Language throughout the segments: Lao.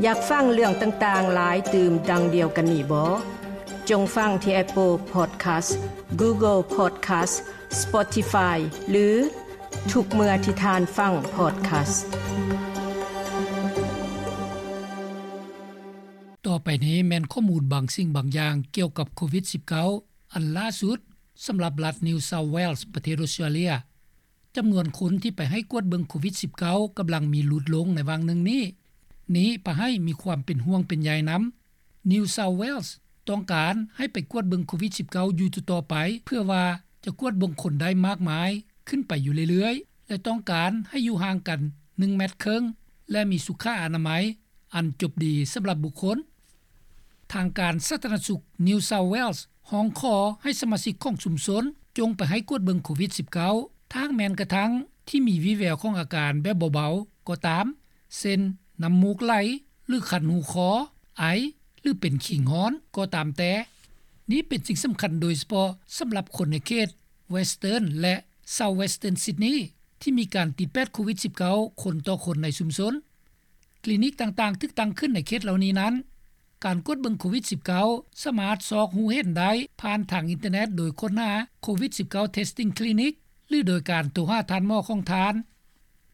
ຢາກຟັງເລື່ອງຕ່າງໆຫຼາຍຕື່ມດັ່ງດຽວກັນນີ້ບໍ່? ຈົ່ງຟັງທີ່ Apple Podcast, Google Podcast, Spotify ຫຼື ທຸກເມື່ອທີ່ທ່ານຟັງ podcast. ຕໍ່ໄປນີ້ແມ່ນຂໍ້ມູນບາງສິ່ງບາງຢ່າງກ່ຽວກັບໂຄວິດສິບເກົ້າ ອັນລ່າສຸດສຳລັບລັດ New South Wales ປະເທດອອສເຕຣເລັຍ. ຈຳນວນຄົນທີ່ໄປໃຫ້ກວດເບິ່ງໂຄວິດສິບເກົ້າ ກຳລັງມີຫຼຸດລົງໃນຫວ່າງໜຶ່ງນີ້. ນີ້ພາໃຫ້ມີຄວາມເປັນຫ່ວງເປັນໃຍນຳ. New South Wales ຕ້ອງການໃຫ້ໄປກວດເບິ່ງໂຄວິດສິບເກົ້າ ຢູ່ຕໍ່ໆໄປ ເພື່ອວ່າຈະກວດເບິ່ງຄົນໄດ້ມາກມາຍຂຶ້ນໄປຢູ່ເລື້ອຍໆ ແລະ ຕ້ອງການໃຫ້ຢູ່ຫ່າງກັນໜຶ່ງແມັດເຄິ່ງ ແລະ ມີສຸຂະອະນາໄມອັນຈົບດີສຳລັບບຸກຄົນ. ທາງການສາທາລະນະສຸກ New South Wales ຮ້ອງຂໍໃຫ້ສະມາຊິກຂອງຊຸມຊົນ ຈົ່ງໄປໃຫ້ກວດເບິ່ງໂຄວິດສິບເກົ້າ ຖ້າຫາກແມ່ນກະທັ່ງທີ່ມີວີແວວຂອງອາການແບບເບົາໆກໍຕາມ ເຊັ່ນ ນ້ຳມູກໄຫຼ ຫຼື ຄັນຫູຄໍ, ໄອ ຫຼື ເປັນຄີງຮ້ອນກໍຕາມແຕ່. ນີ້ເປັນສິ່ງສຳຄັນໂດຍສະເພາະສຳລັບຄົນໃນເຂດ Western ແລະ South Western Sydney ທີ່ມີການຕິດແປດໂຄວິດສິບເກົ້າ ຄົນຕໍ່ຄົນໃນຊຸມຊົນ. ຄລີນິກຕ່າງໆຖືກຕັ້ງຂຶ້ນໃນເຂດເຫຼົ່ານີ້ນັ້ນ. ການກວດເບິ່ງໂຄວິດສິບເກົ້າ ສາມາດຊອກຮູ້ເຫັນໄດ້ຜ່ານທາງອິນເຕີເນັດໂດຍຄົ້ນຫາ ໂຄວິດສິບເກົ້າ Testing Clinic ຫຼື ໂດຍການໂທຫາທ່ານໝໍຂອງທ່ານ.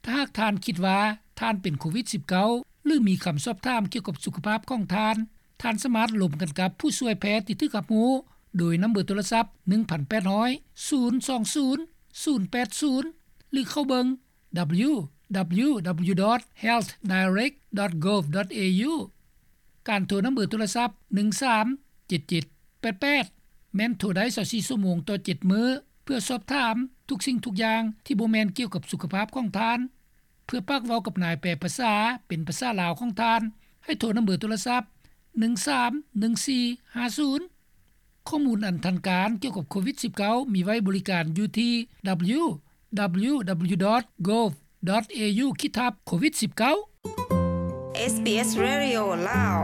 ຖ້າຫາກທ່ານຄິດວ່າທ່ານເປັນໂຄວິດສິບເກົ້າ ຫຼື ມີຄຳສອບຖາມກ່ຽວກັບສຸຂະພາບຂອງທ່ານ, ທ່ານສາມາດລົມກັນກັບຜູ້ຊ່ວຍແພດທີ່ຖືກຮັບຮູ້ໂດຍນຳເບີໂທລະສັບ ໜຶ່ງພັນແປດຮ້ອຍ ສູນສອງສູນ ສູນແປດສູນ ຫຼື ເຂົ້າເບິ່ງ www.healthdirect.gov.au. ການໂທນຳເບີໂທລະສັບ ໜຶ່ງສາມເຈັດເຈັດແປດແປດ ແມ່ນໂທໄດ້ຊາວສີ່ຊົ່ວໂມງຕໍ່ເຈັດມື້ ເພື່ອສອບຖາມທຸກສິ່ງທຸກຢ່າງທີ່ບໍ່ແມ່ນກ່ຽວກັບສຸຂະພາບຂອງທ່ານ. ເພື່ອປາກເວົ້າກັບນາຍແປພາສາເປັນພາສາລາວຂອງທ່ານ, ໃຫ້ໂທນຳເບີໂທລະສັບ ໜຶ່ງສາມໜຶ່ງສີ່ຫ້າສູນ. ຂໍ້ມູນອັນທັນການກ່ຽວກັບໂຄວິດສິບເກົ້າ ມີໄວ້ບໍລິການຢູ່ທີ່ www.gov.au ຂີດທັບ ໂຄວິດສິບເກົ້າ. SBS Radio ລາວ.